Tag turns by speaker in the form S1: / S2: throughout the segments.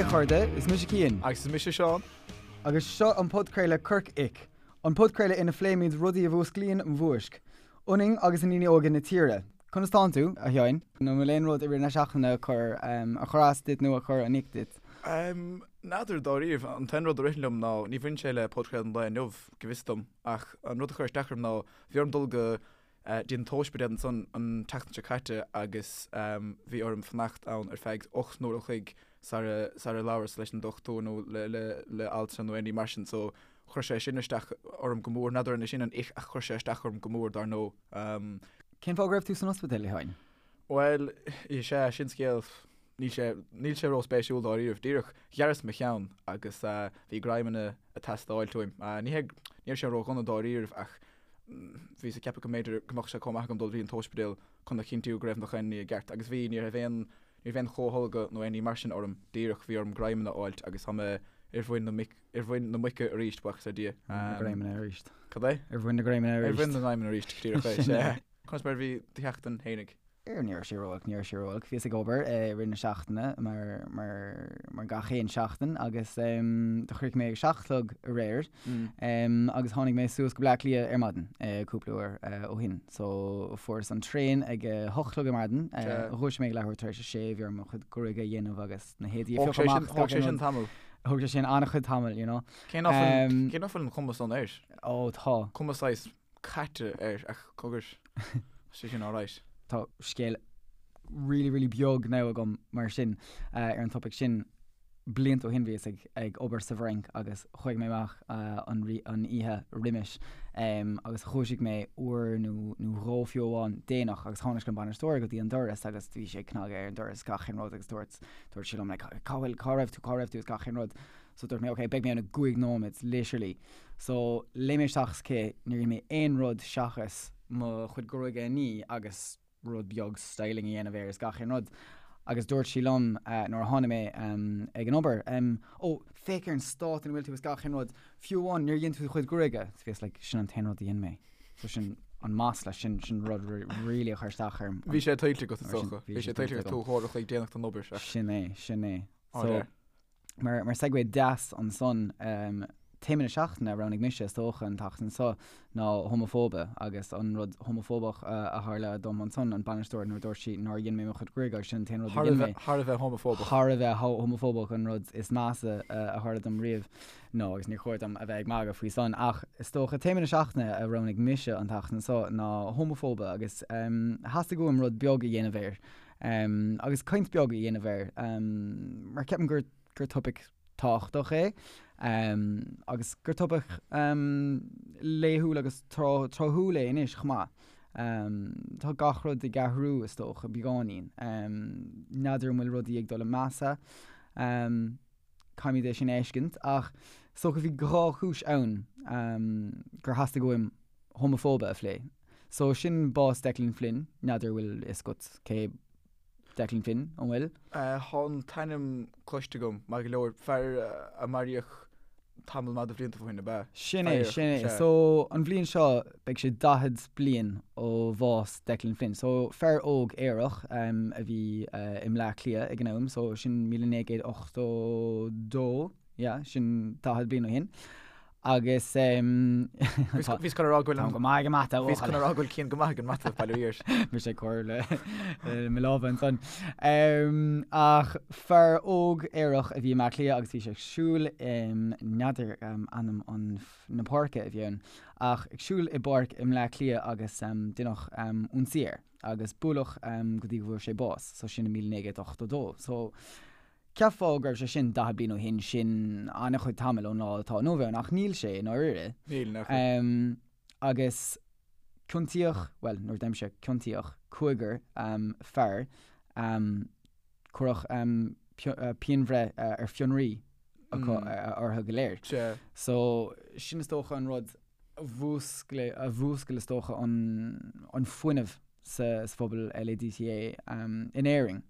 S1: Haigh a chairde, is mise Cian.
S2: Agus is mise Seán.
S1: Agus seo an podchraoladh Corc Ic, an podchraoladh ina phléimid rudaí a mhúsclaíonn an mhúisc ionainn agus i ndaoine óga na tíre. Conas tánn tú, a Sheáin? An bhfuil aon rud i rith na seachtaine a chuir a chuir as duit nó a chuir an ick duit?
S2: N'fheadar dáiríre. An t-aon rud a ritheann liom ná, ní bhaineann sé le podchraoladh an lae inniu, go bhfios dom, ach an rud a chuir isteach orm ná, bhí orm dul go dtí an t-ospidéal ansan an tseachtain seo caite agus bhí orm fanacht ann ar feadh 8 n-uair an chloig sara sara labhras leis an dochtúir nó le le le altra nó aon ní mar sin so chuir sé sin isteach orm go mór. N'fheadar an é sin an ick ach chuir sé isteach orm go mór dar ndóigh.
S1: Cén fáth go raibh tú san ospidéal, a Sheáin?
S2: Bhuel, is ea, sin scéal, níl sé, níl sé róspéisiúil dáiríribh. Díreach, ghearras mo cheann agus bhí greamanna ag teastáilt uaim. Ní hé, ní raibh sé ródhona dáiríribh ach bhíos ag ceapadh go mb'fhéidir go mbeadh sé chomh maith agam dul go dtí an t-ospidéal chun a chinntiú go raibh nach aon ní i gceart. Agus bhí, ní raibh aon, ní raibh aon chomhtholgadh nó aon ní mar sin orm. Díreach, bhí orm greamanna a fháilt agus tá mé ar mhuin na mic, ar mhuin na muice arís, buíochas le Dia.
S1: Ar mhuin na greamanna arís.
S2: Cad é?
S1: Ar mhuin na greamanna
S2: arís. Ar mhuin na ngreamanna arís, díreach é, sea. Conas mar a bhí do sheachtain fhéinig?
S1: Ní raibh sé ró-olc, ní raibh sé ró-olc. Bhíos ag obair i rith na seachtaine mar, mar, mar gach aon seachtain agus do chríochnaigh mé ag a 7 a chlog aréir agus tháinig mé suas go Bleá Cliath ar maidin cúpla uair ó shin. So fuaireas an traein ag a 8 a chlog ar maidin, dhúisigh mé ag leathuair tar éis a sé, bhí orm mo chuid gruaige a dhéanamh agus na héadaí a phiocadh amach.
S2: Thóg sé sin tamall.
S1: Thóg sé sin an-chuid tamall, you know.
S2: Cé nach bhfuil, cé nach bhfuil an chuma san air?
S1: Ó tá.
S2: Cuma saghas caite air ach cogar, tá sé sin alright.
S1: Tá scéal really really beag now agam mar sin ar an topaic sin. Blianta ó shin bhíos ag ag obair sa bhFrainc agus chuaigh mé amach an an oíche roimis agus dhúisigh mé uair nó nó dhó fiú amháin déanach agus tháinig an bainisteoir go dtí an doras agus bhí sé ag cnagadh ar an doras gach aon rud agus dúirt dúirt sé liom like cá bhfuil cá raibh tú cá raibh tú is gach aon rud. So dúirt mé ok beidh mé ann i gcúig nóiméad literally. So léim mé isteach sa cith, níor dhein mé aon rud seachas mo chuid gruaige a ní agus rud beag styling a dhéanamh air is gach aon rud. Agus dúirt sí liom nuair a tháinig mé ag an obair, Ó, féach ar an stát ina bhfuil tú is gach aon rud, fiú amháin níor dhein tú do chuid gruaige. So bhíos like, sin an t-aon rud a dhein mé. So sin an masla, sin sin rud really a chuir isteach orm.
S2: Bhí sé tuillte agat is dócha. Bhí sé tuillte agat tú uair a chloig déanach don obair.
S1: Sin é, sin é. So, Mar mar segue deas ansan, téama na seachtaine a roghnaigh mise is dócha an tseachtain seo ná homafóibe agus an rud homafóbach a tharla dom ansan, an bainisteoir nuair a dúirt sí nár dhein mé mo chuid gruaige agus sin an t-aon rud a dhein mé.
S2: Thar a bheith homafóbach.
S1: Thar a bheith homafóbach an rud is measa a tharla dom riamh. No, agus níor chóir dom a bheith ag magadh faoi san ach is dócha téama na seachtaine a roghnaigh mise an tseachtain seo ná homafóibe agus theastaigh uaim rud beag a dhéanamh air. Agus caint beag a dhéanamh air, mar ceapaim gur gur topaic tábhachtach é, agus gur topaic laethúil agus tráthúil é anois chomh maith. Tá gach rud ag athrú, is dócha, beagáinín. N'fheadar an bhfuil rudaí ag dul i measa. Caithfimid é sin a fheiscint, ach is dócha bhí dhá chúis ann gur theastaigh uaim homafóibe a phlé. So sin bás Declan Flynn, n'fheadar an bhfuil fhios agat cé Declan Flynn, an bhfuil?
S2: Tá an t-ainm cloiste agam, maith go leor. Fear a maraíodh tamall maith de bhlianta ó shin, ab ea?
S1: Sin é, sin é. So an bhliain seo beidh sé 40 bliain ó bhás Declan Flynn. So fear óg aerach a bhí i mBleá Cliath ag an am, so sin 1982, yeah, sin 40 bliain ó shin. Agus
S2: Bhíos chun a rá go bhfuil
S1: an. Táim go maith ag an mata,
S2: Bhíos chun a rá go bhfuil Cian go maith ag an mata, bail ó Dhia air.
S1: Mise ag cur le mo lámha ansan. Ach fear óg aerach a bhí i mBleá Cliath agus bhí sé ag siúl, n'fheadar ainm an na páirce a bhí ann, ach ag siúl i bpáirc i mBleá Cliath agus deineadh ionsaí air agus buaileadh go dtí go bhfuair sé bás, so sin i 1982. So Cheapfá go raibh sé sin 40 bliain ó shin, sin an-chuid tamaill ón lá atá inniu ann, ach níl sé i ndáiríre.
S2: Níl, nach bhfuil.
S1: Agus ciontaíodh, bhuel, nuair a deirimse ciontaíodh, cúigear fear, cuireadh pianbhreith ar fionraí acu orthu go léir.
S2: Sea.
S1: So, sin is dócha an rud a mhúscail, a mhúscail is dócha an fuinneamh sa phobal LADTA in Éirinn.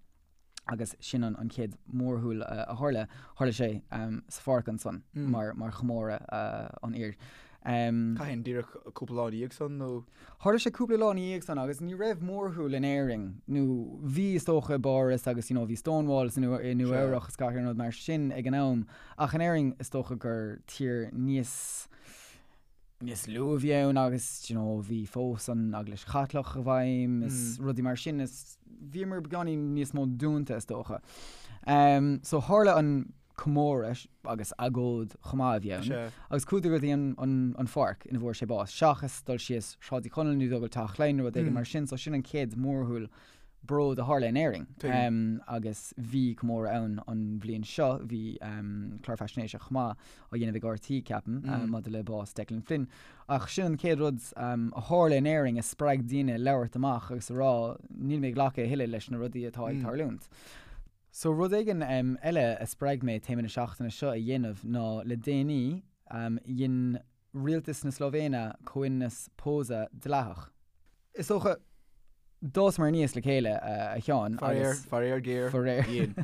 S1: agus sin an chéad mhórshiúl a tharla, tharla sé sa pháirc ansan mar mar chomóradh an fhir.
S2: Cathain, díreach cúpla lá ina dhiaidh san nó?
S1: Tharla sé cúpla lá ina dhiaidh san agus ní raibh mórshiúl in Éirinn nó bhí is dócha i bPáras agus you know bhí Stonewall i Nua Eabhrach is gach aon rud mar sin ag an am ach in Éirinn is dócha gur tír níos níos lú a bhí ann agus you know bhí fós an Eaglais Chaitliceach i bhfeidhm is rudaí mar sin is bhíomar beagáinín níos mó dúnta is dócha. So tharla an comóradh agus agóid chomh maith a bhí ann agus chuadar go dtí an pháirc ina bhfuair sé bás, seachas dul síos Sráid Uí Chonaill nó dul go Teach Laighean nó rud éigin mar sin, so sin an chéad mhórshiúl bróid a tharla in Éirinn. Agus bhí comóradh ann an bhliain seo, bhí clár faisnéise chomh maith á dhéanamh ag RTÉ, ceapaim, maidir le bás Declan Flynn. Ach sin an chéad rud a tharla in Éirinn a spreag daoine labhairt amach agus a rá níl mé ag glacadh a thuilleadh leis na rudaí atá ag tarlúint. So rud éigin eile a spreag mé téama na seachtaine seo a dhéanamh ná le déanaí dhein rialtas na Slóivéine comhionannas pósadh dleathach. Is dócha, d'fhásamar aníos le chéile a Sheáin
S2: agus. Faraor, faraor géar,
S1: Faraor. dhein.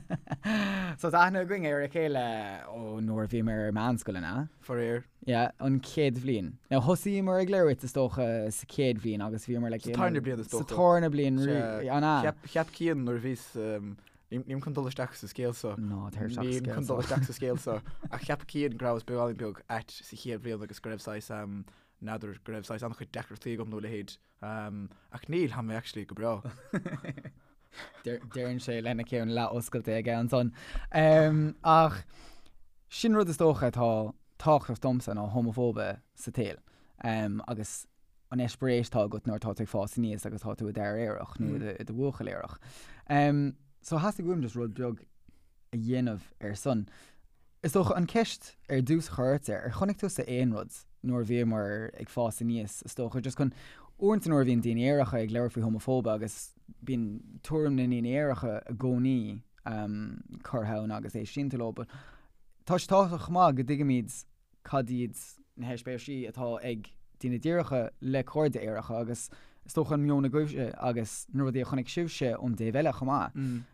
S1: So tá aithne againn ar a chéile ó nuair a bhíomar ar meánscoil, an ea?
S2: Faraor.
S1: Yeah, an chéad bhliain. Now thosaíomar ag labhairt is dócha sa chéad bhliain agus bhíomar like
S2: Sa tarna bliain is
S1: dócha. Sa tarna bliain, an
S2: ea? Cheap, cheap Cian nuair a bhíos, nílim chun dul isteach sa scéal
S1: so. Ná tar isteach sa
S2: scéal so. Nílim chun dul isteach sa scéal so. Ach cheap Cian go rabhas beagáinín beag ait sa chéad bhliain agus go raibh saghas, n'fheadar, go raibh saghas an-chuid deacrachtaí agam nó a leithéid. Ach níl, tá mé actually go breá.
S1: Deireann sé lena cheann leath-oscailte aige ansan. Ach sin rud is dócha atá tábhachtach domsa ná homafóibe sa tsaol agus an eispéireas atá agat nuair atá tú ag fás aníos agus tá tú i d'fhear aerach nó i do bhuachaill aerach. So theastaigh uaim just rud beag a dhéanamh ar son. Is dócha an ceist ar dtús a chur ort, ar chonaic tusa aon rud nuair a bhíomar ag fás aníos, is dócha, just chun, uaireanta nuair a bhíonn daoine aeracha ag labhairt faoi homafóibe agus bíonn tuairim na ndaoine aeracha i gcónaí curtha ann agus éistíonn tú leo, but tá sé tábhachtach chomh maith go dtuigimid cad iad na heispéirisí atá ag daoine díreacha le cairde aeracha agus is dócha an meon agaibhse agus na rudaí a chonaic sibhse ón dtaobh eile chomh maith.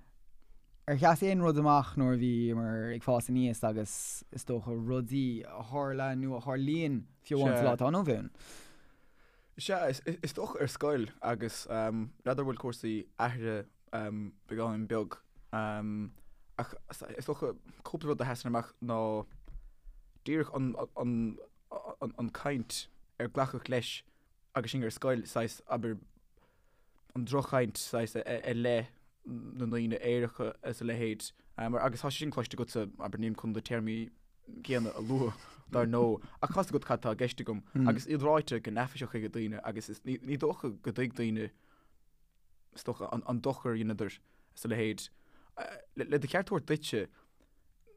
S1: Ar sheas aon rud amach nuair a bhíomar ag fás aníos agus is dócha rudaí a tharla nó a tharlaíonn fiú amháin sa lá atá inniu ann?
S2: Sea, is dócha ar scoil agus n'fheadar an bhfuil cúrsaí athraithe beagáinín beag ach is dócha cúpla rud a sheasann amach ná díreach an caint ar glacadh leis agus sinn ar scoil, saghas, abair, an droch-chaint saghas i leith na ndaoine aeracha is a leithéid mar agus tá sé sin cloiste agatsa, abair, nílim chun na téarmaí céanna a lua dar ndóigh ach tá's agat cad tá i gceist agam agus iad ráite go neafaiseach ag daoine agus is ní dócha go dtuig daoine is dócha, an dochar a dheineadar is a leithéid. Le do cheart a thabhairt duitse,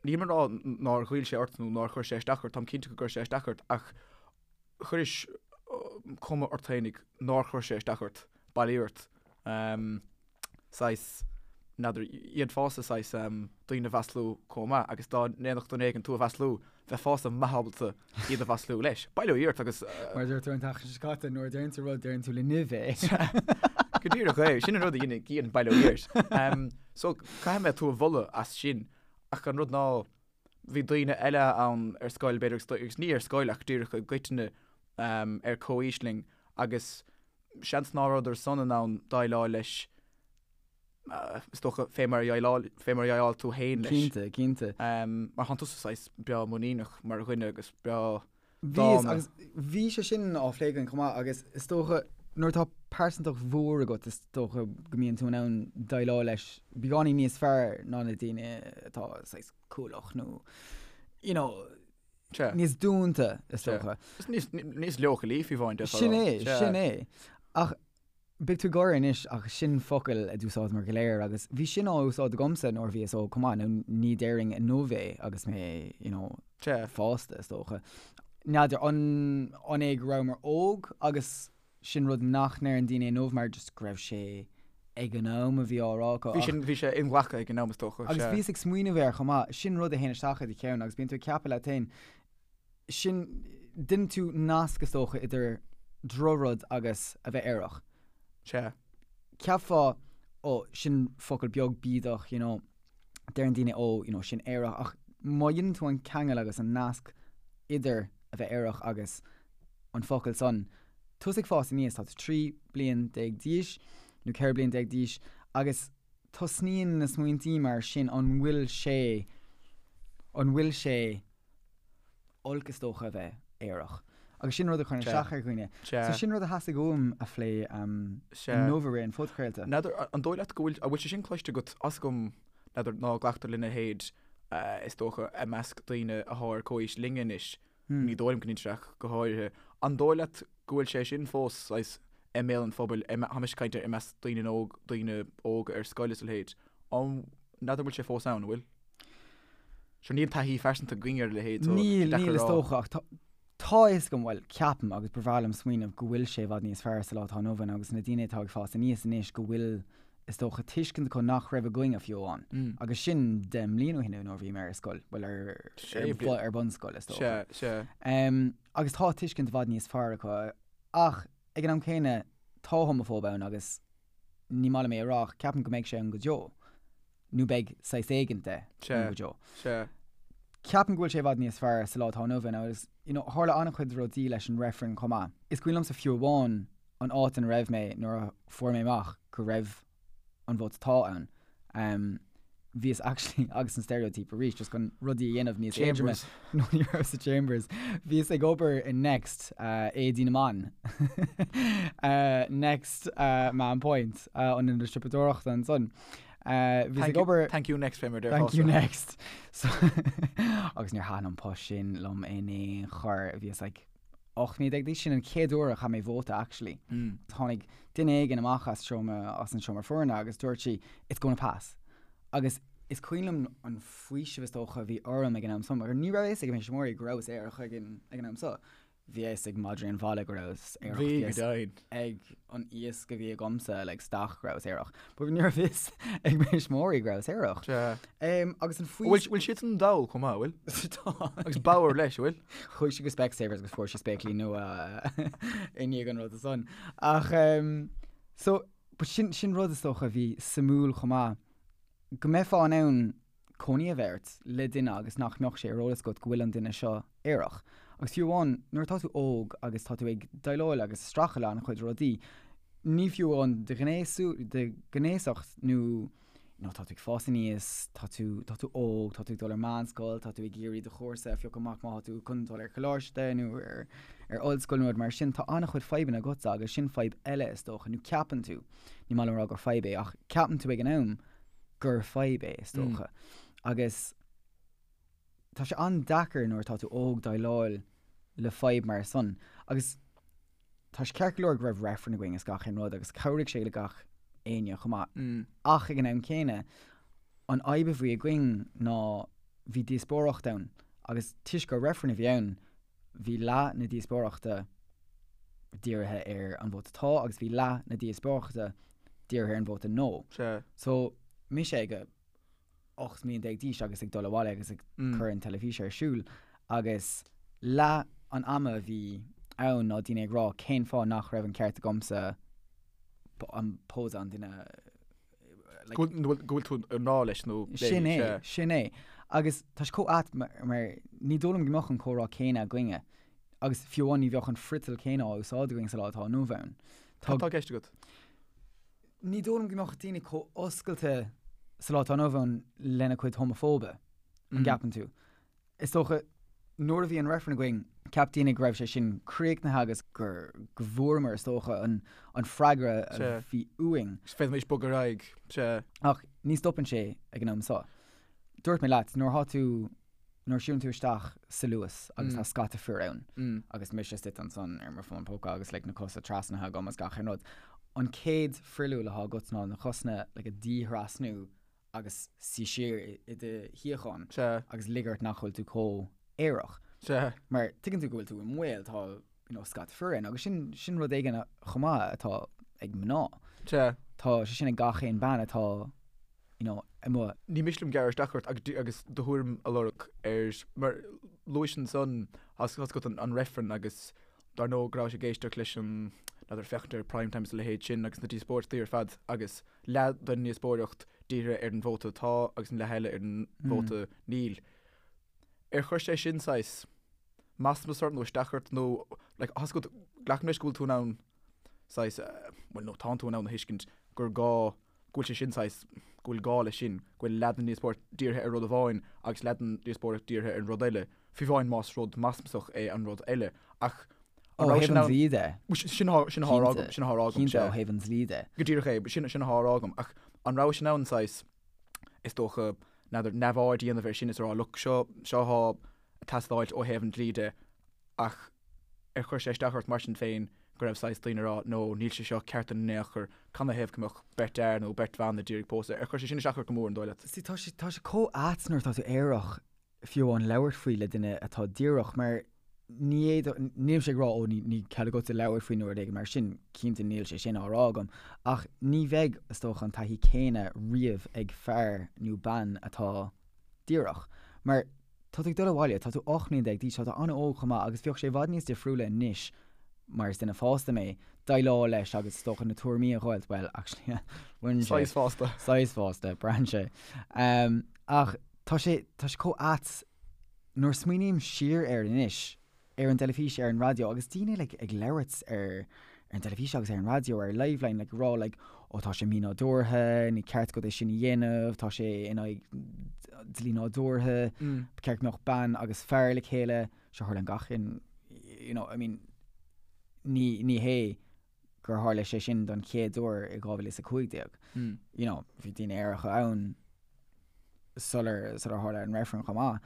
S2: nílim ag rá nár ghoill sé ort nó nár chuir sé isteach ort, táim cinnte go gcuir sé isteach ort ach chuiris cuma ort fhéinig nár chuir sé isteach ort, bail ó Dhia ort. Saghas, n'fheadar, dhéanfása saghas daoine a mhaslú chomh maith agus dá ndéanfadh duine éigin tú a mhaslú, bheifeása maith ábalta iad a mhaslú leis. Bail ó Dhia ort agus.
S1: Mar a dúirt tú an tseachtain seo caite, nuair a deireann tú rud, deireann tú le nimh
S2: é. Go díreach é, sin an rud a dhéanann Cian, bail ó Dhia ort. So, caithfidh mé tú a mholadh as sin, ach an rud ná, bhí daoine eile ann ar scoil, b'fhéidir, agus ní ar scoil ach díreach i gcoitinne ar comhaois linn agus seans ná rabhadar san in ann déileáil leis, is dócha, fé mar a dhéileáil, fé mar a dhéileáil tú féin
S1: leis. Cinnte, cinnte.
S2: Mar thánn tusa saghas breá muiníneach mar dhuine agus breá
S1: dána. Agus bhí sé sin á phlé againn chomh maith agus is dócha nuair atá pearsantacht mhór agat is dócha go mbíonn tú in ann déileáil leis beagáinín níos fearr ná na daoine atá saghas cúlach nó you know, níos dúnta is dócha.
S2: Is níos leochailí fiú amháin.
S1: Sin é, sin é. Ach Beidh tú ag gáire anois ach sin focal a d'úsáideamar go léir agus bhí sin á úsáid agamsa nuair a bhíos óg chomh maith, nó ní déarfainn inniu é agus mé, you know, fásta is dócha. N'fheadar an an é go rabhamar óg agus sin rud nach ndeireann daoine inniu mar just go raibh sé ag an am a bhí á rá acu
S2: Bhí sin, bhí sé inghlactha ag an am is dócha,
S1: Agus bhíos ag smaoineamh air chomh maith, sin rud a théann isteach i do cheann agus bíonn tú ag ceapadh leat féin, sin, déanann tú nasc is dócha idir drochrud agus a bheith aerach.
S2: Sea.
S1: Cheapfá, ó, sin focal beag bídeach, you know, deireann daoine, ó, you know, sin aerach, ach má dhéanann tú an ceangal agus an nasc idir a bheith aerach agus. an focal san. Tusa ag fás aníos, tá tú 13 bliain d'aois nó 14 bliain d'aois agus tosnaíonn na smaointí mar sin an bhfuil sé, an bhfuil sé olc is dócha a bheith aerach? Agus sin rud a chuireann isteach ar dhaoine. So sin rud a theastaigh uaim a phlé inniu i rith an phodchraolta.
S2: N'fheadar, an dóigh leat go bhfuil, an bhfuil sé sin cloiste agat, 'fhios agam, n'fheadar, ná glactar lena leithéid is dócha i measc daoine athá ar comhaois linne anois, ní dóigh liom go n-intreach go háirithe. An dóigh leat go bhfuil sé sin fós saghas i mbéal an phobail, tá mise ag caint ar i measc daoine óg, daoine óga ar scoil is a leithéid, an, n'fheadar an bhfuil sé fós ann, an bhfuil? Sure níl taithí phearsanta againn ar a leithéid so
S1: Níl, níl is dócha ach tá, tá a fhios agam, bhuel, ceapaim agus ba bhreá liom smaoineamh go bhfuil sé i bhfad níos fearr sa lá atá inniu ann agus na daoine atá ag fás aníos anois go bhfuil is dócha, tuiscint acu nach raibh againne fiú amháin. Agus sin 10 mbliana ó shin nuair a bhí mé ar scoil, bhuel ar ar bunscoil is
S2: dócha. Sea,
S1: sea. Agus tá tuiscint i bhfad níos fearr acu ach ag an am céanna tá homafóib ann agus ní maith liom é a rá ach ceapaim go mbeidh sé ann go deo. Nó beidh saghas éigint de ann go deo.
S2: Sea.
S1: Ceapaim go bhfuil sé i bhfad níos fearr sa lá atá inniu ann agus you know tharla an-chuid rudaí leis an reifreann chomh maith. Is cuimhin liomsa fiú amháin an áit ina raibh mé nuair a fuair mé amach go raibh an vóta tá ann. Um, bhíos actually agus an stereotype arís just chun rudaí a dhéanamh níos éadroime.
S2: Chambers.
S1: No ní raibh sa Chambers. Bhíos ag obair in Next uh, éadaí na mban. uh, Next uh, Mahon Point uh, an ionad siopadóireachta ansan. Uh, bhíos ag obair
S2: Thank you next fé mar
S1: Thank you next. So, agus níor thaitin an post sin liom in aon chor. Bhíos like 18 mbliana d'aois, sin an chéad uair a chaith mé vóta actually. Tháinig duine éigin amach as seomra, as an seomra foirne agus dúirt sí it's gonna pass. Agus is cuimhin liom an faoiseamh is dócha a bhí orm ag an am so, mar ní raibh a fhios ag thuismitheoirí go rabhas aerach ag an, ag an am so. Bhí a fhios ag madraí an bhaile go rabhas aerach.
S2: Bhí, go deimhin.
S1: ag an iasc a bhí agamsa like stach go rabhas aerach. But ní raibh fhios ag mo thuismitheoirí go rabhas aerach.
S2: Sea.
S1: Um, agus an faoi...
S2: Bhfuil bhfuil siadsan dall chomh maith, bhfuil?
S1: Tá.
S2: Agus bodhar leis, bhfuil?
S1: Chuaigh sí go Specsavers agus fuair sí spéaclaí nua i ndiaidh an rud san. Ach, um, so, but sin, sin rud is dócha a bhí suimiúil chomh maith. Go mbeifeá in ann cónaí a bheith ort le duine agus nach mbeadh sé ar eolas agat go bhfuil an duine seo aerach. Agus fiú amháin nuair atá tú óg agus tá tú ag déileáil agus ag streachailt le an-chuid rudaí, ní fiú amháin do ghnéasú, do ghnéasacht nó you know, tá tú ag fás aníos, tá tú, tá tú óg, tá tú ag dul ar meánscoil, tá tú ag iarraidh do chúrsa a phiocadh amach má tá tú chun dul ar choláiste nó ar, ar ollscoil nó rud mar sin, tá an-chuid fadhbanna agatsa agus sin fadhb eile is dócha, nó ceapann tú, ní maith liom a rá gur fadhb é, ach ceapann tú ag an am gur fadhb é, is dócha. Agus tá sé an-deacair nuair atá tú óg déileáil le fadhb mar san. Agus tá sé ceart go leor go raibh reifreann againn is gach aon rud agus chabhraigh sé le gach éinne chomh maith. Ach ag an am céanna, an fhadhb a bhí againn ná bhí díospóireacht ann agus toisc gur reifreann a bhí ann, bhí leath na díospóireachta dírithe ar an vóta tá agus bhí leath na díospóireachta dírithe ar an vóta no.
S2: Sea.
S1: So, mise ag 18 mbliana d'aois agus ag dul abhaile agus ag cur an teilifís ar siúl agus leath an ama a bhí ann ná daoine ag rá cén fáth nach raibh an ceart agamsa an pósadh an duine
S2: like, Go bhfuil go bhfuil tú i ngrá leis nó léi,
S1: Sin é,
S2: sea.
S1: sin é. Agus tá sé chomh ait mar, mar ní dóigh liom go mbeadh an comhrá céanna againne agus fiú amháin ní bheadh an friotal céanna á úsáid againn sa lá atá inniu ann.
S2: Cad tá i gceist agat?
S1: Ní dóigh liom go mbeadh daoine chomh oscailte sa lá atá inniu ann lena cuid homafóibe, an gceapann tú? Is dócha, nuair a bhí an reifreann againn, cheap daoine go raibh sé sin críochnaithe agus gur, go bhfuaireamar, is dócha, an, an freagra a bhí uainn.
S2: Sea. Féadfaimis bogadh ar aghaidh. Sea.
S1: Ach ní stopann sé ag an am seo. Dúirt mé leat, nuair atá tú, nuair a siúlann tú isteach sa Luas agus tá scata fir ann agus mise istigh ansan ar mo fón póca agus like na cosa trasnaithe agam agus gach aon rud, an chéad fruiliú atá agat ná na cosna like a dhíthrasnú agus suí siar i do shuíochán agus lig ort nach bhfuil tú chomh aerach.
S2: Sea.
S1: Mar tuigeann tú go bhfuil tú i mbaol, tá you know, scata fir ann agus sin, sin rud éigin chomh maith atá ag mná.
S2: Sea.
S1: Tá sé sin ag gach aon bean atá you know, amuigh.
S2: Ní miste liom gearradh isteach ort agus do thuairim a lorg ar, mar luais ansan, tá a fhios agat an reifreann agus dar ndóigh go rabhais ag éisteacht leis an, n'fheadar, féachaint ar Prime Time is a leithéid sin agus na díospóireachtaí ar fad agus leath den ndíospóireacht dírithe ar an vóta tá agus an leath eile ar an vóta níl. Ar chuir sé sin saghas. masmas ort nó isteach ort nó like tá a fhios agat, glacaim leis go bhfuil tú in ann saghas, bhuel no tánn tú in ann a thuiscint gur gá, go bhfuil sé sin saghas, go bhfuil gá leis sin, go bhfuil leath den díospóireacht dírithe ar rud amháin agus leath den díospóireacht dírithe ar an rud eile, fiú amháin más rud masmasach é an rud eile. Ach
S1: an raibh sin ann? Ó thaobh an dlí de.
S2: Sin atá, sin atá á rá agam, sin atá á rá agam,
S1: Cinnte, ó thaobh an dlí de.
S2: Go díreach é, sin, sin atá á rá agam. Ach an raibh sin ann saghas, is dócha, n'fheadar, neamhaird a dhéanamh air sin is a rá, look, seo, seo atá ag teastáilt ó thaobh an dlí de ach ar chuir sé isteach ort mar sin féin go raibh saghas daoine ag rá no níl sé seo ceart in aon chor, canathaobh go mbeadh beirt fhear nó beirt bhan ag iarraidh pósadh, ar chuir sé sin isteach ort go mór an dóigh leat?
S1: See tá sé, tá sé chomh ait nuair atá tú aerach fiú amháin labhairt faoi le duine atá díreach mar ní fhéadfadh, nílimse ag rá ó ní, ní cead agatsa labhairt faoi nó rud éigin mar sin, cinnte níl sé sin á rá agam ach ní bheidh is dócha an taithí céanna riamh ag fear nó bean atá díreach mar Tá tú ag dul abhaile, tá tú 18 mbliana d'aois, tá tú an-óg chomh maith agus bheadh sé i bhfad níos difriúla anois mar is duine fásta mé, déileáil leis agus is dócha na tuairimí a dh'fháilt, bhuel, actually,
S2: bhain sé. Saghas fásta.
S1: Saghas fásta, braitheann sé. Ach tá sé, tá sé chomh ait nuair a smaoiním siar air anois, ar an dteilifís, ar an raidió agus daoine like ag labhairt ar ar an dteilifís agus ar an raidió ar Liveline like ag rá like ó tá sé mínádúrtha, ní ceart agat é sin a dhéanamh, tá sé in aghaidh dlí nádúrtha, ba cheart go mbeadh bean agus fear le chéile, seo tharlaíonn gach aon you know I mean ní ní hé gur tharla sé sin don chéad uair i 2015. You know bhí daoine aeracha ann sular sular tharla an reifreann chomh maith.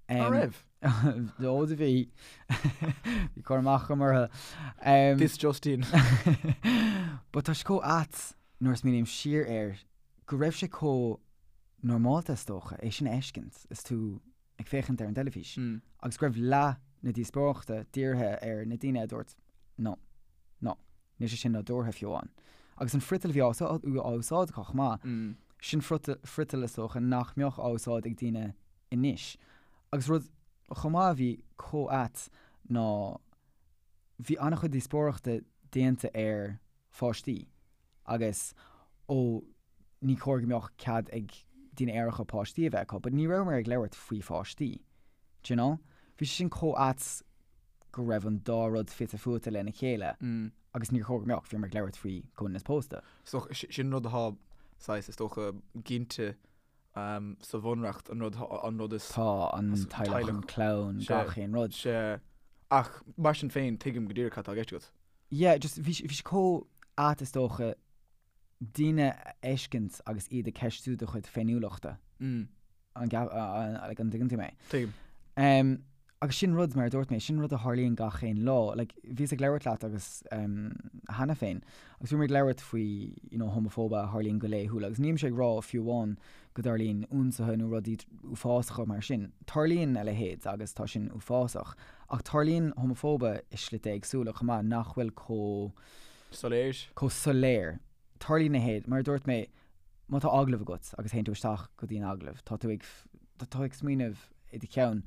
S2: An raibh?
S1: Ó do bhí. Bhí cur amach agam orthu.
S2: This just in.
S1: But tá sé chomh ait nuair a smaoiním siar air go raibh sé chomh normálta is dócha é sin a fheiscint is tú ag féachaint ar an dteilifís agus go raibh leath na díospóireachta dírithe ar na daoine a dúirt no, no, níl sé sin nádúrtha fiú amháin. Agus an friotal a bhí á úsáid acu chomh maith, sin friotal is dócha nach mbeadh á úsáid ag daoine anois. Agus rud chomh maith a bhí chomh ait ná bhí an-chuid díospóireachta déanta ar pháistí agus ó ní chóir go mbeadh cead ag daoine aeracha páistí a bheith acu but ní rabhamar ag labhairt faoi pháistí. Do you know? Bhí sé sin chomh ait go raibh an dá rud fite fuaite lena chéile agus níor chóir go mbeadh, bhíomar ag labhairt faoi comhionannas pósta.
S2: So sin rud atá saghas is dócha ginte sa bhunreacht, an rud, an rud is.
S1: Tá, an teaghlach, an clann, gach aon rud.
S2: Sea. Ach mar sin féin, tuigim go díreach cad tá i gceist agat.
S1: Yeah, just bhí bhí sé chomh ait is dócha daoine a fheiscint agus iad ag ceistiú do chuid féiniúlachta. An like an dtuigeann tú mé?
S2: Tuigim.
S1: Agus sin rud, mar a dúirt mé, sin rud a tharlaíonn gach aon lá. Like, bhíos ag labhairt leat agus cheana féin, agus bhíomar ag labhairt faoi, you know, homafóibe a tharlaíonn go laethúil, agus nílimse ag rá fiú amháin go dtarlaíonn ionsaithe nó rudaí uafásacha mar sin. Tarlaíonn a leithéid agus tá sin uafásach, ach tarlaíonn homafóibe i slite éagsúla chomh maith nach bhfuil chomh.
S2: Soiléir.
S1: Chomh soiléir. Tarlaíonn a leithéid, mar a dúirt mé, má tá agallamh agat agus théann tú isteach go dtí an agallamh, tá tú ag, tá tú ag smaoineamh i do cheann,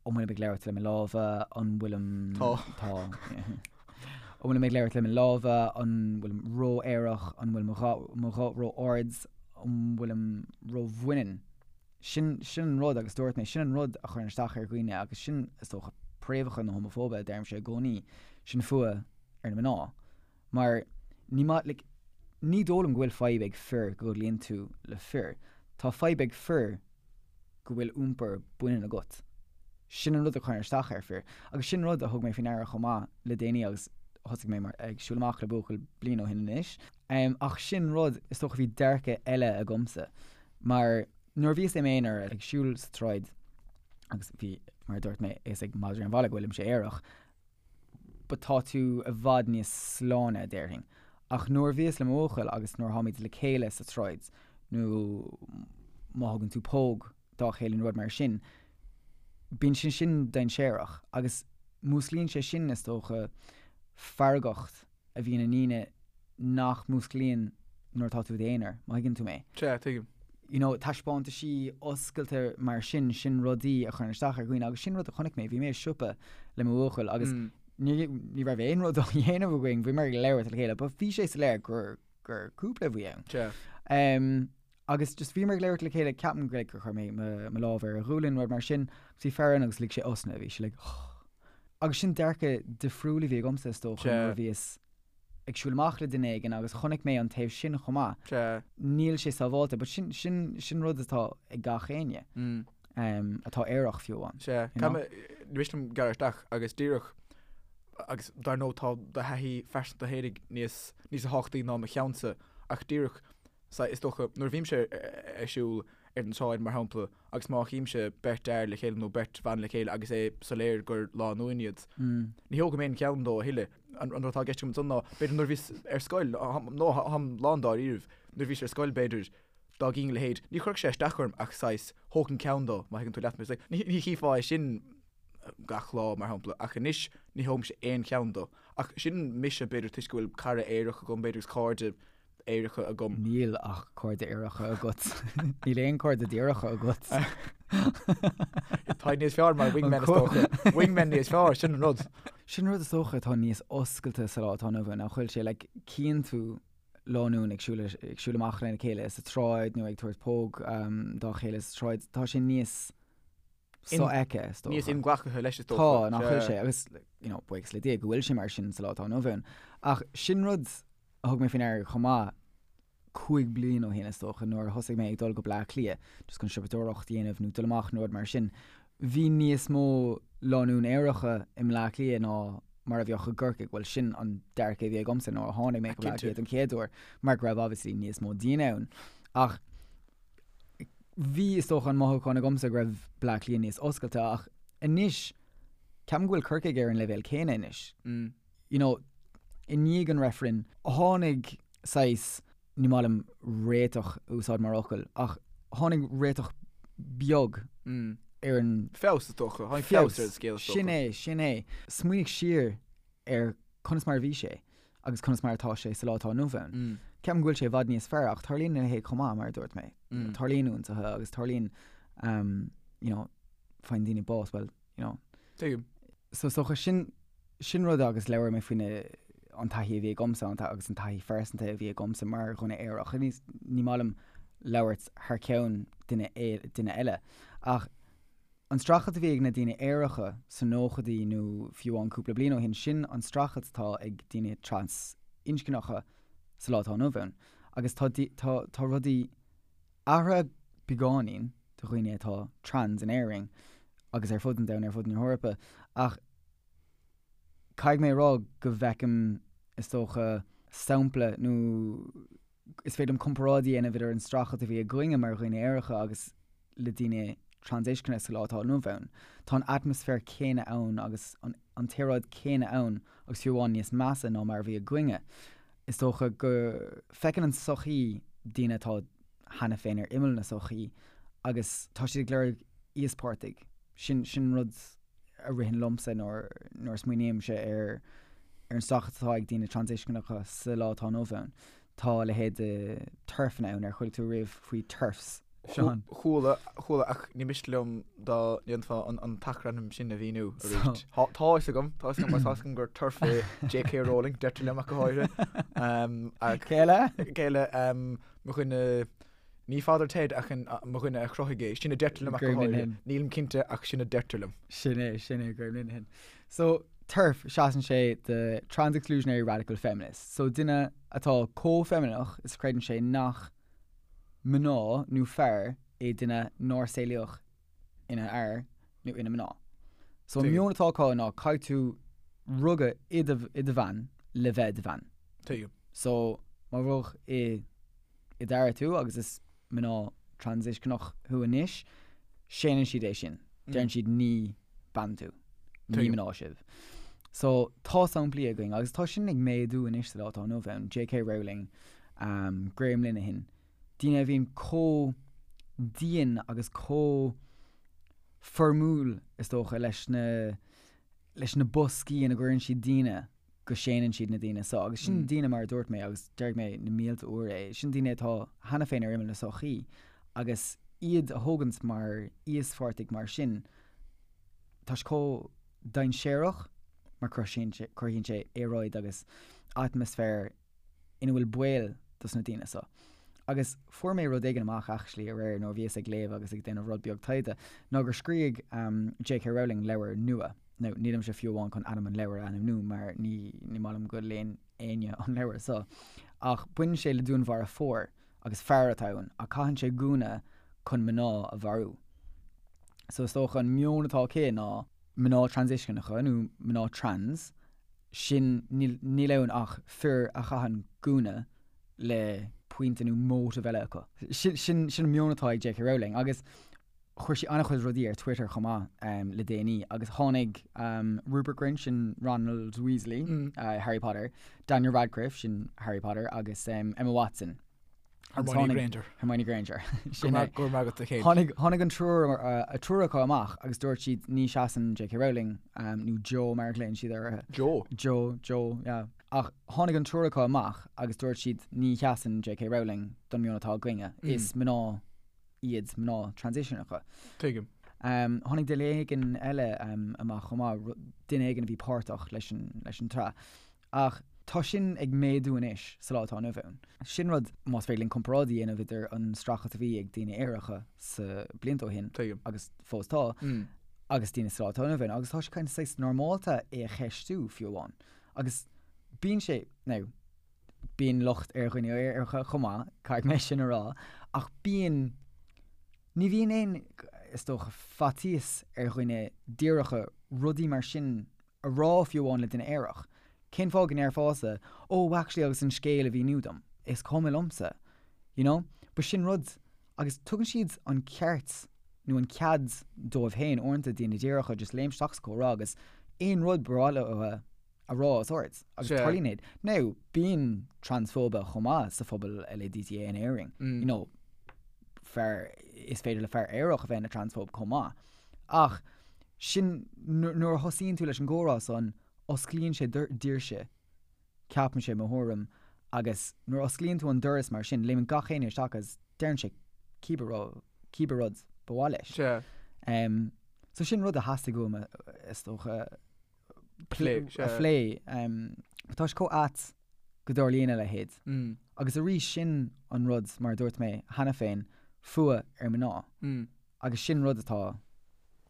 S1: an bhfuilim ag labhairt le mo lámha, an bhfuilim.
S2: Tá.
S1: Tá. An bhfuilim ag labhairt le mo lámha, an bhfuilim ró-aerach, an bhfuil mo ghuth, mo ghuth ró-ard, an bhfuilim ró-bhaineann. Sin, sin an rud agus dúirt mé, sin an rud a chuireann isteach ar dhaoine agus sin, is dócha, préamhacha na homafóibe a deirimse i gcónaí, sin fuath ar na mná. Mar ní maith, like, ní dóigh liom go bhfuil fadhb ag fir go gcodlaíonn tú le fir. Tá fadhb ag fir go bhfuil iompar baineann agat. Sin an rud a chuireann isteach ar fir. Agus sin rud a thug mé faoi ndeara chomh maith le déanaí agus thosaigh mé mar, ag siúl amach le buachaill bliain ó shin anois. Ach sin rud, is dócha bhí dearcadh eile agamsa. Mar nuair a bhíos i m'aonar ag siúl sa tsráid agus bhí, mar a dúirt mé, a fhios ag madraí an bhaile go bhfuilimse aerach, but tá tú i bhfad níos sláine, déarfainn. Ach nuair a bhíos le mo bhuachaill agus nuair tháimid le chéile sa tsráid, nó má thugann tú póg dá chéile nó rud mar sin, bíonn sé sin dainséarach agus músclaíonn sé sin, is dócha, feargacht a bhíonn i ndaoine nach músclaíonn nuair atá tú i d'aonar, má thuigeann tú mé.
S2: Sea, tuigim.
S1: You know, taispeántaisí oscailte mar sin, sin rudaí a chuireann isteach ar dhaoine agus sin rud a chonaic mé, bhí mé i siopa le mo bhuachaill agus ní, ní raibh aon rud á dhéanamh againn, bhíomar ag labhairt le chéile, but bhí sé soiléir gur, gur cúpla a bhí ann.
S2: Sea.
S1: Um, agus just bhíomar ag labhairt le chéile, ceapaim go, like, gur chuir mé mo, mo lámh ar a ghualainn, rud mar sin, agus bhí fear ann agus lig sé osna, bhí sé like, oh. Agus sin dearcadh difriúil a bhí agamsa is dócha nuair a bhíos ag siúl amach le duine éigin agus chonaic mé an taobh sin chomh maith. Níl sé sábháilte, but sin, sin, sin rud atá ag gach éinne atá aerach fiú amháin.
S2: Sea. Ní miste liom gearradh isteach agus díreach, agus dar ndóigh tá do thaithí phearsanta fhéinig níos, níos tábhachtaí ná mo cheannsa, ach díreach, is dócha, nuair a bhímse ag siúl ar an tsráid mar shampla, agus má chímse beirt fhear le chéile nó beirt bhan le chéile agus é soiléir gur lánúin iad, ní thógaim aon cheann dó a thuilleadh. An rud atá i gceist agam ansan ná, b'fhéidir nuair a bhíos ar scoil, nó táim lán dáiríribh, nuair a bhíos ar scoil b'fhéidir, dá gcínn a leithéid, ní chuirfeadh sé isteach orm ach saghas, thógfainn ceann dó, má thuigeann tú leat mé. Ní chífeá é sin gach lá, mar shampla, ach anois ní thógaimse aon cheann dó. Ach sin mise, b'fhéidir, toisc go bhfuil cara aerach agam, b'fhéidir, agus cairde aeracha agam.
S1: Níl ach cairde aeracha agat. Níl aon cairde díreacha agat.
S2: Tá níos fearr mar wingman is dócha. Wingman níos fearr, sin an rud.
S1: Sin rud is dócha atá níos oscailte sa lá atá inniu ann, nach bhfuil sé, like, cíonn tú lánúin ag siúl, ag siúl amach lena chéile sa tsráid nó ag tabhairt póg dá chéile sa tsráid, tá sé níos sofheicthe, is
S2: dócha. Níos inghlactha leis, is
S1: dócha. Tá, nach bhfuil sé, agus, you know, buíochas le Dia go bhfuil sé mar sin sa lá atá inniu ann. Ach sin rud a thug mé faoi ndeara chomh maith 5 bliain ó shin, is dócha, nuair a thosaigh mé ag dul go Bleá Cliath, just chun siopadóireacht a dhéanamh nó dul amach nó rud mar sin. Bhí níos mó lánúin aeracha i mBleá Cliath ná mar a bheadh i gCorcaigh, bhuel sin an dearcadh a bhí agamsa nuair a tháinig mé go Bleá Cliath don chéad uair, mar go raibh obviously níos mó daoine ann. Ach bhí, is dócha, an mothúchán agamsa go raibh Bleá Cliath níos oscailte ach anois ceapaim go bhfuil Corcaigh ar an leibhéal céanna anois. You know, i ndiaidh an reifrinn, tháinig saghas, ní maith liom réiteach a úsáid mar fhocal, ach tháinig réiteach beag ar an.
S2: Feabhas is dócha, tháinig feabhas ar an scéal is
S1: dócha. Sin é, sin é. Smaoinigh siar ar conas mar a bhí sé agus conas mar atá sé sa lá atá inniu ann. Ceapaim go bhfuil sé i bhfad níos fearr ach tarlaíonn a leithéid chomh maith, mar a dúirt mé. Tarlaíonn ionsaithe agus tarlaíonn, you know, faigheann daoine bás, well, you know.
S2: Tuigim.
S1: So is dócha sin, sin rud agus labhair mé faoina an taithí a bhí agamsa an agus an taithí phearsanta a bhí agamsa mar dhuine aerach. Ní, ní maith liom labhairt thar ceann duine, duine eile. Ach an streachailt a bhí ag na daoine aeracha sa nóchaidí nó fiú amháin cúpla bliain ó shin, sin an streachailt atá ag daoine trasinscneacha sa lá atá inniu ann. Agus tá, tá, tá rudaí athraithe beagáinín do dhaoine atá trans in Éirinn agus ar fud an domhain, ar fud na hEorpa, ach caithfidh mé a rá go bhfeicim, is dócha, sampla nó is féidir liom comparáid a dhéanamh idir an streachailt a bhí againne mar dhaoine aeracha agus le daoine transinscne sa lá atá inniu ann. Tá an atmaisféar céanna ann agus an t-aeráid céanna ann agus fiú amháin níos measa ná mar a bhí againne. Is dócha go feiceann an tsochaí daoine atá cheana féin ar imeall na sochaí agus tá siad ag lorg íospartaigh. Sin, sin rud a ritheann liomsa nuair, nuair a smaoinímse ar, ar an streachailt atá ag daoine transinscneacha sa lá atá inniu ann. Tá a leithéid de TERFanna ann, ar chuala tú riamh faoi TERFs,
S2: Seán? Chuala, chuala, ach ní miste liom dá ndéanfá an, an t-acrainm sin a mhíniú arís. Tá, tá fhios agam, tá fhios agam, mar tá fhios agam gur TERF é J.K. Rowling, deirtear liom ach go háirithe.
S1: Ach. Cé eile?
S2: Cé eile? Mo dhuine, ní Father Ted ach an, mo dhuine a chruthaigh é, sin a deirtear liom ach go
S1: Graham háirithe.
S2: Linehan. Nílim cinnte ach sin a deirtear liom.
S1: Sin é, sin é Graham Linehan. So, TERF, seasann sé do Trans Exclusionary Radical Feminist. So, duine atá chomh feimineach is a chreideann sé nach mná nó fear é duine nár saolaíodh ina fhear nó ina mná. So, an
S2: Tuigim.
S1: meon atá acu ná caithfidh tú rugadh i do, i do bhean le bheith i do bhean.
S2: Tuigim.
S1: So, má rugadh i i d'fhear tú agus is mná transinscneach thú anois, séanann siad é sin. Deireann siad ní bean tú, ní mná sibh. So, tá samplaí againn agus tá sin ag méadú anois sa lá atá inniu ann, J.K. Rowling, um, Graham Linehan, daoine a bhíonn chomh dian agus chomh foirmiúil is dócha leis na leis na boscaí ina gcuireann siad daoine go séanann siad na daoine seo. Agus sin daoine, mar a dúirt mé, agus déarfaidh mé na mílte uair é, sin daoine atá cheana féin ar imeall na sochaí agus iad a thógaint mar íospartaigh mar sin, tá sé chomh dainséarach mar cruthaíonn sé aeráid agus atmaisféar ina bhfuil baol dos na daoine seo. Agus fuair mé rud éigin amach actually aréir nuair a bhíos ag léamh agus ag déanamh rud beag taighde, ná gur scrígh J.K. Rowling leabhar nua. Now, nílimse fiú amháin chun ainm an leabhair a ainmniú mar ní ní maith liom go léann éinne an leabhar so. Ach baineann sé le dúnmharfóir agus fear atá ann ach caitheann sé gúna chun mná a mharú. So is dócha an meon atá aici ná mná transitionacha nó mná trans, sin níl níl ann ach fir a chaitheann gúna le pointe nó motive eile acu. Sin sin sin an meon atá ag J.K. Rowling agus chuir sí an-chuid rudaí ar Twitter chomh maith le déanaí agus tháinig Rupert Grint, sin Ronald Weasley, Harry Potter, Daniel Radcliffe, sin Harry Potter, agus Emma Watson.
S2: Hermione Granger.
S1: Hermione Granger.
S2: Sin é. Go raibh maith agat a
S1: Chéin. Tháinig tháinig an triúr a triúr acu amach agus dúirt siad ní seasann J.K. Rowling nó Jo mar a ghlaonn siad uirthi.
S2: Jo?
S1: Jo, Jo, yeah. Ach tháinig an triúr acu amach agus dúirt siad ní sheasann J.K. Rowling don meon atá againne. Is mná iad mná transitionacha.
S2: Tuigim.
S1: Tháinig duine éigin eile amach chomh maith, duine éigin a bhí páirteach leis an tsraith. Ach tá sin ag méadú anois sa lá atá inniu ann. Sin rud, más féidir linn comparáid a dhéanamh idir an streachailt a bhí ag daoine aeracha sa blianta ó shin,
S2: Tuigim.
S1: agus fós tá, agus daoine sa lá atá inniu ann. Agus tá sé kind of saghas normálta é a cheistiú fiú amháin. Agus bíonn sé, now, Bíonn locht ar dhaoine aeracha chomh maith, caithfidh mé sin a rá, ach bíonn, ní bhíonn aon, is dócha, faitíos ar dhaoine díreacha rudaí mar sin a rá fiú amháin le duine aerach. Cén fáth go ndéarfása, oh actually agus an scéal a mhíniú dom, is cuma liomsa, you know? But sin rud, agus tugann siad an ceart nó an cead dóibh féin uaireanta, daoine díreacha, just léim isteach sa chomhrá agus aon rud ba mhaith leo a rá os ard agus tarlaíonn iad. Now, bíonn transphóibe chomh maith sa phobal LADTA in Éirinn. You know, fear, is féidir le fear aerach a bheith ina transphobe chomh maith. Ach sin, nuair a thosaíonn tú leis an gcomhrá san, osclaíonn sé doirse, ceapaimse, mo thuairim, agus nuair a osclaíonn tú an doras mar sin, léimeann gach éinne isteach agus deireann sé cibé rud, cibé rud ba mhaith leis.
S2: Sea.
S1: So sin rud a theastaigh uaim, is dócha, a phlé. Tá sé chomh ait go dtarlaíonn a leithéid. Agus arís sin an rud, mar a dúirt mé cheana féin, fuath ar mná. Agus sin rud atá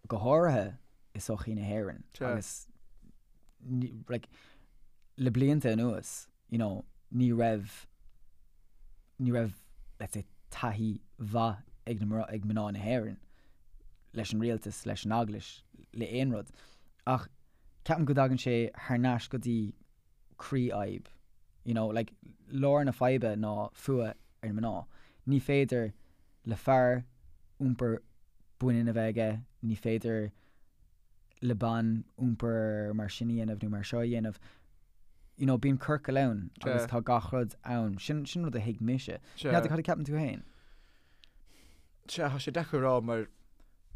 S1: go háirithe i sochaí na hÉireann. Agus like, le blianta anuas, you know, ní raibh, ní raibh, let's say, taithí mhaith ag na, ag mná na hÉireann leis an rialtas, leis an eaglais, le aon rud. Ach ceapaim go dtagann sé thar n-ais go dtí croí-fhadhb. You know, like, lár na faidhbe ná fuath ar na mná. Ní féidir le fear iompar baineann a bheith aige, ní féidir le bean iompar mar sin a dhéanamh nó mar seo a dhéanamh. You know, bíonn ciorcal ann agus tá gach rud ann. Sin, sin rud a thuig mise. N'fheadar cad a ceapann tú féin?
S2: Sea, tá sé deacair a rá mar,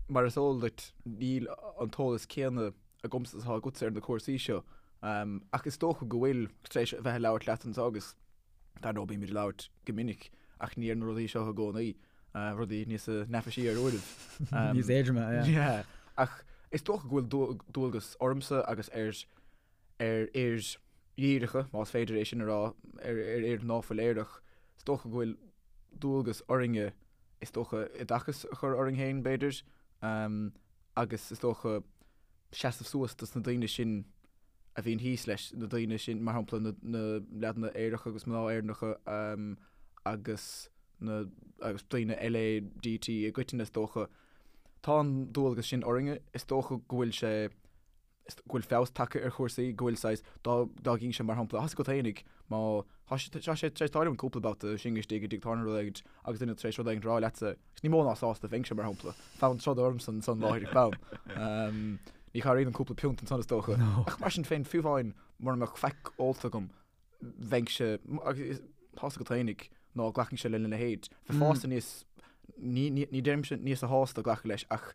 S2: mar is eol duit, níl an t-eolas céanna agamsa is atá agatsa ar na cúrsaí seo. Ach is dócha go bhfuil, tar éis a bheith ag labhairt leat anseo agus dar ndóigh bímid ag labhairt go minic ach ní ar na rudaí seo i gcónaí, rudaí níos neafaisí ar uairibh.
S1: Níos éadroime, yeah.
S2: Yeah. Ach is dócha go bhfuil dualgas ormsa agus ar ar fhir dhíreacha, más féidir é sin a rá, ar fhir ná fuil aerach, is dócha go bhfuil dualgas orainne, is dócha, oideachas a chur orainn féin, b'fhéidir, agus is dócha seasamh suas dos na daoine sin a bhíonn thíos leis, na daoine sin, mar shampla, na, na leaideanna aeracha agus mná Éireannacha agus na, agus daoine LADT i gcoitinne, is dócha. Tá an dualgas sin orainne, is dócha go bhfuil sé, go bhfuil feabhas tagtha ar chúrsaí, go bhfuil saghas, dá, dá gcinnse mar shampla, tá 's agat fhéinig, má, tá sé, tá sé tar éis tarlú cúpla babhta sinn istigh i dtigh tábhairne rud éigint agus duine tar éis rud éigint a rá leatsa, agus ní mó ná sásta a bheinnse mar shampla, fonn troda ormsa ansan láithreach bonn. Ní chabhraíonn an cúpla piúnt ansan is dócha. Ach mar sin féin, fiú amháin mura mbeadh faic ólta agam, bheinnse, agus tá 's agat fhéinig, ná glacfainnse lena leithéid. Bheifeása níos, ní, ní, ní deirimse níos sásta glacadh leis ach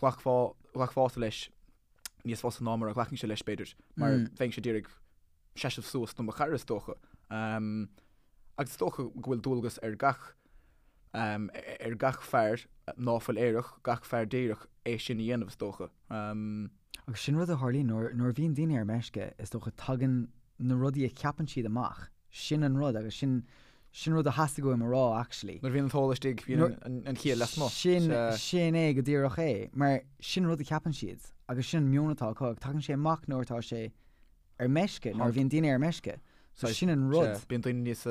S2: ghlacfá, ghlacfása leis níos fusa ná mar a ghlacfainnse leis b'fhéidir, mar bheinnse d'iarraidh seasamh suas do mo chara is dócha. Agus is dócha go bhfuil dualgas ar gach, ar gach fear ná fuil aerach, gach fear díreach é sin a dhéanamh is dócha.
S1: Agus sin rud a tharlaíonn nuair, nuair a bhíonn daoine ar meisce, is dócha tagann na rudaí a cheapann siad amach. Sin an rud agus sin, sin rud a theastaigh uaim a rá actually.
S2: Nuair a bhíonn an t-ól istigh, bíonn an chiall lasmuigh.
S1: Sin, sin é go díreach é. Mar sin rud a cheapann siad. Agus sin an meon atá acu, ach tagann sé amach nuair atá sé ar meisce, nuair a bhíonn daoine ar meisce. So sin an rud.
S2: Sea, bíonn daoine níos,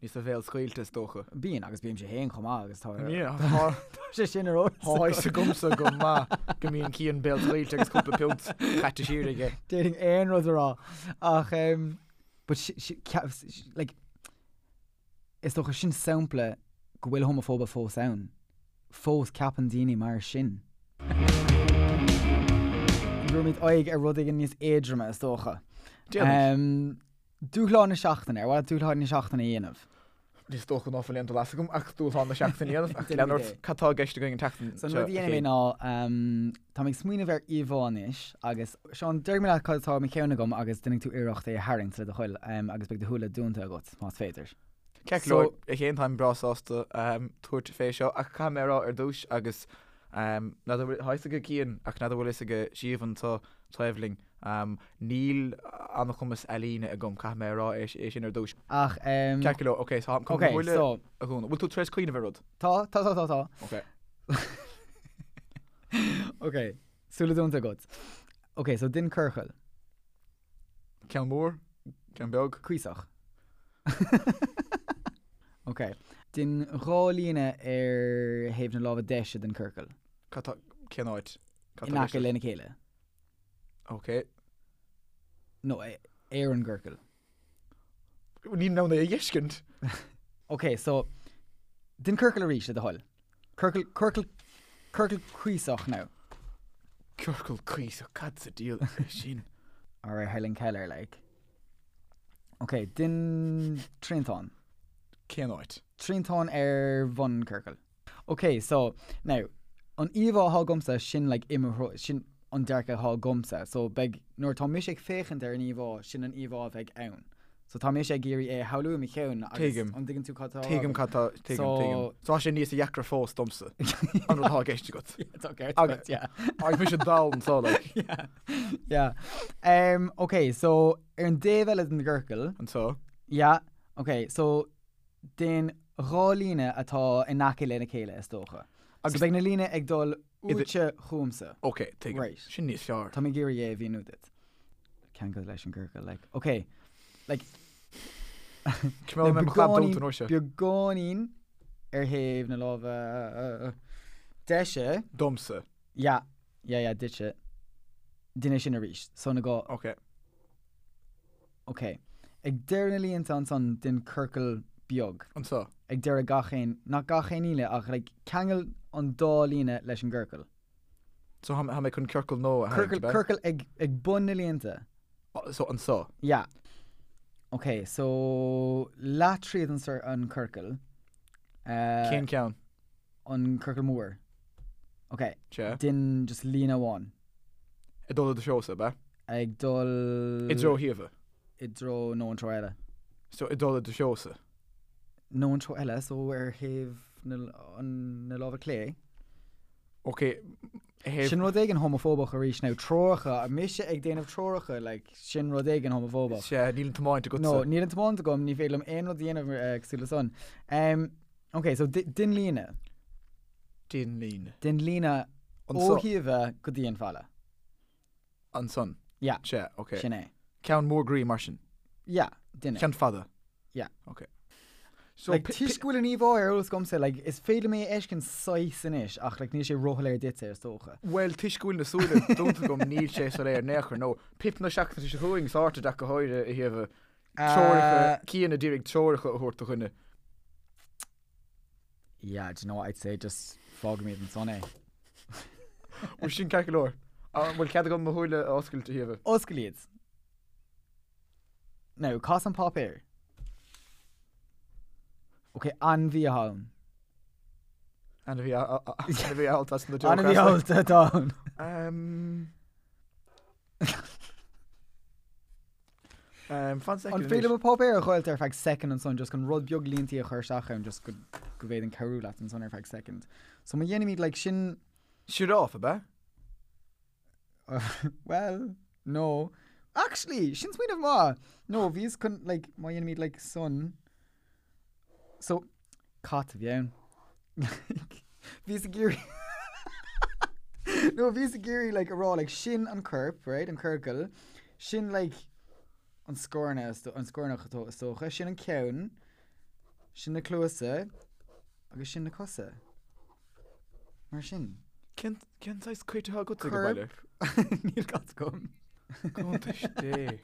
S2: níos béalscaoilte is dócha.
S1: Bíonn, agus bímse féin chomh maith agus tá,
S2: tá
S1: sé sin ar eolas.
S2: Tá a fhios agamsa go maith go mbíonn Cian béalscaoilte agus cúpla piúnt caite siar aige.
S1: D'fhéadfainn aon rud a rá ach but like is dócha sin sampla go bhfuil homafóibe fós ann. Fós ceapann daoine mar sin. Tabharfaimid aghaidh ar rud éigin níos éadroime is dócha.
S2: Déanfaidh.
S1: Dúshlán na seachtaine, ar mhaith leat dúshlán na seachtaine a dhéanamh?
S2: Is dócha ná fuil aon dul as agam ach dúshlán na seachtaine a dhéanamh ach lean ort, cad tá i gceist againn an tseachtain
S1: seo? So an rud a dhéanfaidh mé ná, tá mé ag smaoineamh ar íomhá anois agus, Seán, déarfaidh mé leat cad atá i mo cheann agam agus déanfaidh tú iarracht é a tharraingt le do thoil agus beidh do shúile dúnta agat, más féidir.
S2: Ceart go leor, a Chéin, táim breá sásta tabhairt fé seo ach caithfidh mé a rá ar dtús agus n'fheadar bhfuil, tá a fhios ag Cian ach n'fheadar bhfuil a fhios ag Siobhan anseo taobh linn, níl an-chumas ealaíne agam, caithfidh mé a rá é sin ar dtús.
S1: Ach.
S2: Ceart go leor, ok, so táim chun mo shúile a dhúnadh. Bhfuil tú tar éis cuimhneamh ar rud?
S1: Tá, tá, tá, tá, tá.
S2: Ok.
S1: Ok, súile dúnta agat. Ok, so dein ciorcal.
S2: Ceann mór? Ceann beag?
S1: Cuíosach. Ok. Dein dha líne ar thaobh na láimhe deise den ciorcal.
S2: Cad tá, cén áit?
S1: Cad tá In aice lena chéile.
S2: Ok.
S1: No, ar an gciorcal.
S2: Níl mé in ann é a fheiscint.
S1: Ok, so, dein ciorcal arís, le do thoil. Ciorcal, ciorcal, ciorcal cuíosach now.
S2: Ciorcal cuíosach, cad sa diabhal é sin?
S1: Alright, Helen Keller, like. Ok, dein triantán.
S2: Cén áit?
S1: Triantán ar bhun an ciorcail. Ok, so, now, an íomhá atá agamsa, sin like i mo threo, sin an dearcadh atá agamsa. So beidh, nuair atá mise ag féachaint ar an íomhá, sin an íomhá a bheidh ann. So tá mise ag iarraidh é a shamhlú i mo cheann agus
S2: Tuigim.
S1: an dtuigeann tú cad tá á rá
S2: Tuigim
S1: agam?
S2: cad tá, tuigim,
S1: So-
S2: tuigim. So tá sé níos deacra fós domsa, an rud atá i gceist agat.
S1: Tá ceart
S2: Agus-
S1: agat, yeah.
S2: Agus mise dall anseo, like.
S1: Yeah, yeah. Um, ok, so ar an dtaobh eile den gciorcal,
S2: Anseo.
S1: yeah, ok, so Déan dha líne atá in aice lena chéile, is dócha. Agus beidh na líne ag dul uaitse chugamsa.
S2: Ok, tuigim.
S1: Right.
S2: Sin níos fearr.
S1: Tá mé ag iarraidh é a mhíniú duit. Ceangal leis an gciorcal, like. Ok, like.
S2: Coimeád mé mo chlab dúnta an uair seo.
S1: Beagáinín ar thaobh na láimhe deise.
S2: Domsa.
S1: Yeah, yeah, yeah, duitse. Déan é sin arís. So na dhá.
S2: Ok.
S1: Ok. Ag deireadh na línte ansan dein ciorcal beag.
S2: Anseo.
S1: Ag deireadh gach aon, nach gach aon líne ach like ceangail an dá líne leis an gciorcal.
S2: So tá mé chun ciorcal nua a tharraingt,
S1: Ciorcal,
S2: ab ea?
S1: ciorcal ag, ag bun na línte.
S2: So anseo.
S1: Yeah. Ok, so leath tríd an, an ciorcal.
S2: Eh. Cén ceann?
S1: An ciorcal mór. Ok.
S2: Sea.
S1: Dein just líne amháin.
S2: Ag dul i do threosa, ab ea?
S1: Ag dul.
S2: I dtreo Shíomha.
S1: I dtreo, nó an treo eile.
S2: So ag dul i do threosa.
S1: Nó an treo eile, so ar thaobh na, an, na láimhe clé.
S2: Ok, thaobh.
S1: Sin rud éigin homafóbach arís now, treoracha, mise ag déanamh treoracha, like, sin rud éigin homafóbach.
S2: Sea, níl an tiomáint agatsa.
S1: No, níl an tiomáint agam, ní féidir liom aon rud a dhéanamh cosúil le san. Um, ok, so dein líne.
S2: Dein líne.
S1: Dein líne ó Shíomha go dtí an falla.
S2: Ansan.
S1: Yeah.
S2: Sea, ok.
S1: Sin é.
S2: Ceann mór groí mar sin.
S1: Yeah, dein é.
S2: Ceann fada.
S1: Yeah.
S2: Ok. So,
S1: Like, toisc go bhfuil an íomhá ar eolas agamsa, like, is féidir liom é a fheiscint saghas anois, ach like, níl sé róshoiléir duitse, is dócha.
S2: Bhuel, toisc go bhfuil na súile dúnta agam, níl sé soiléir in aon chor, nó pip na seachtaine seo chugainn, sorted ach go háirithe a Shíomha. Treoracha, Cian a d'iarraidh treoracha a thabhairt do dhuine.
S1: Yeah, do you know what I'd say, just fágfaimid ansan é.
S2: Bhuel, sin ceart go leor. An bhfuil cead agam mo shúile a oscailt, a Shíomha?
S1: Oscail iad. Now, cas an páipéar. Ok, ainmhí atá ann.
S2: Ainmhí ainmhí allta as na
S1: Ainmhí allta atá ann.
S2: Um, Um, fan
S1: An féidir liom an páipéar a dh'oscailt ar feadh second ansan just chun rud beag líntí a chur isteach ann just go go bhféadfainn cabhrú leat ansan ar feadh second. So má dhéanaimid like sin
S2: Sioráf, ab ea?
S1: well, no. Actually, sin smaoineamh maith! No, bhíos chun like má dhéanaimid like san So, cat a bhí ann. Bhíos ag iarraidh. No, bhíos ag iarraidh like a rá like sin an corp, right, an ciorcal, sin like an scornach, an scornach is dócha, sin an ceann, sin na cluasa agus sin na cosa. Mar sin.
S2: Cén cén saghas cait atá agat ag baile?
S1: Corp. Níl cat agam.
S2: Cuntais Dé.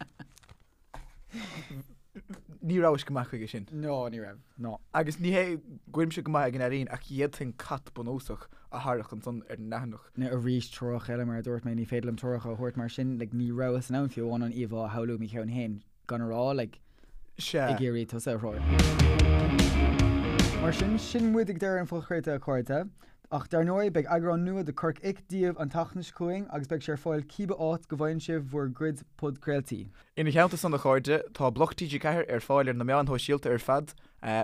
S2: Ní rabhais go maith chuige sin.
S1: No, ní raibh. No.
S2: Agus ní hé go bhfuilimse go maith ag an ealaín ach d'fhéadfainn cat bunúsach a tharrac ansan ar an leathanach.
S1: Now arís treoracha eile mar a dúirt mé, ní féidir liom treoracha a thabhairt mar sin, like ní rabhas in ann fiú amháin an íomhá a shamhlú i mo cheann féin gan a rá like
S2: Sea.
S1: ag iarraidh tusa a threorú. Mar sin, sin muid ag deireadh an phodchraolta a chairde. Ach dar ndóigh, beidh eagrán nua de Corc Ic daoibh an tseachtain seo chugainn agus beidh sé ar fáil cíbe áit go bhfaigheann sibh bhur gcuid podchraoltaí.
S2: Ina theannta san a chairde, tá Bloc TG4 ar fáil ar na meáin shóisialta ar fad,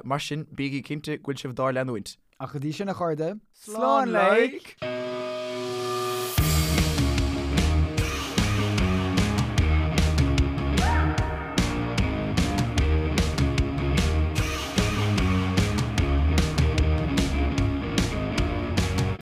S2: mar sin bígí cinnte go bhfuil sibh dár leanúint.
S1: Ach go dtí sin a chairde,
S2: Slán like!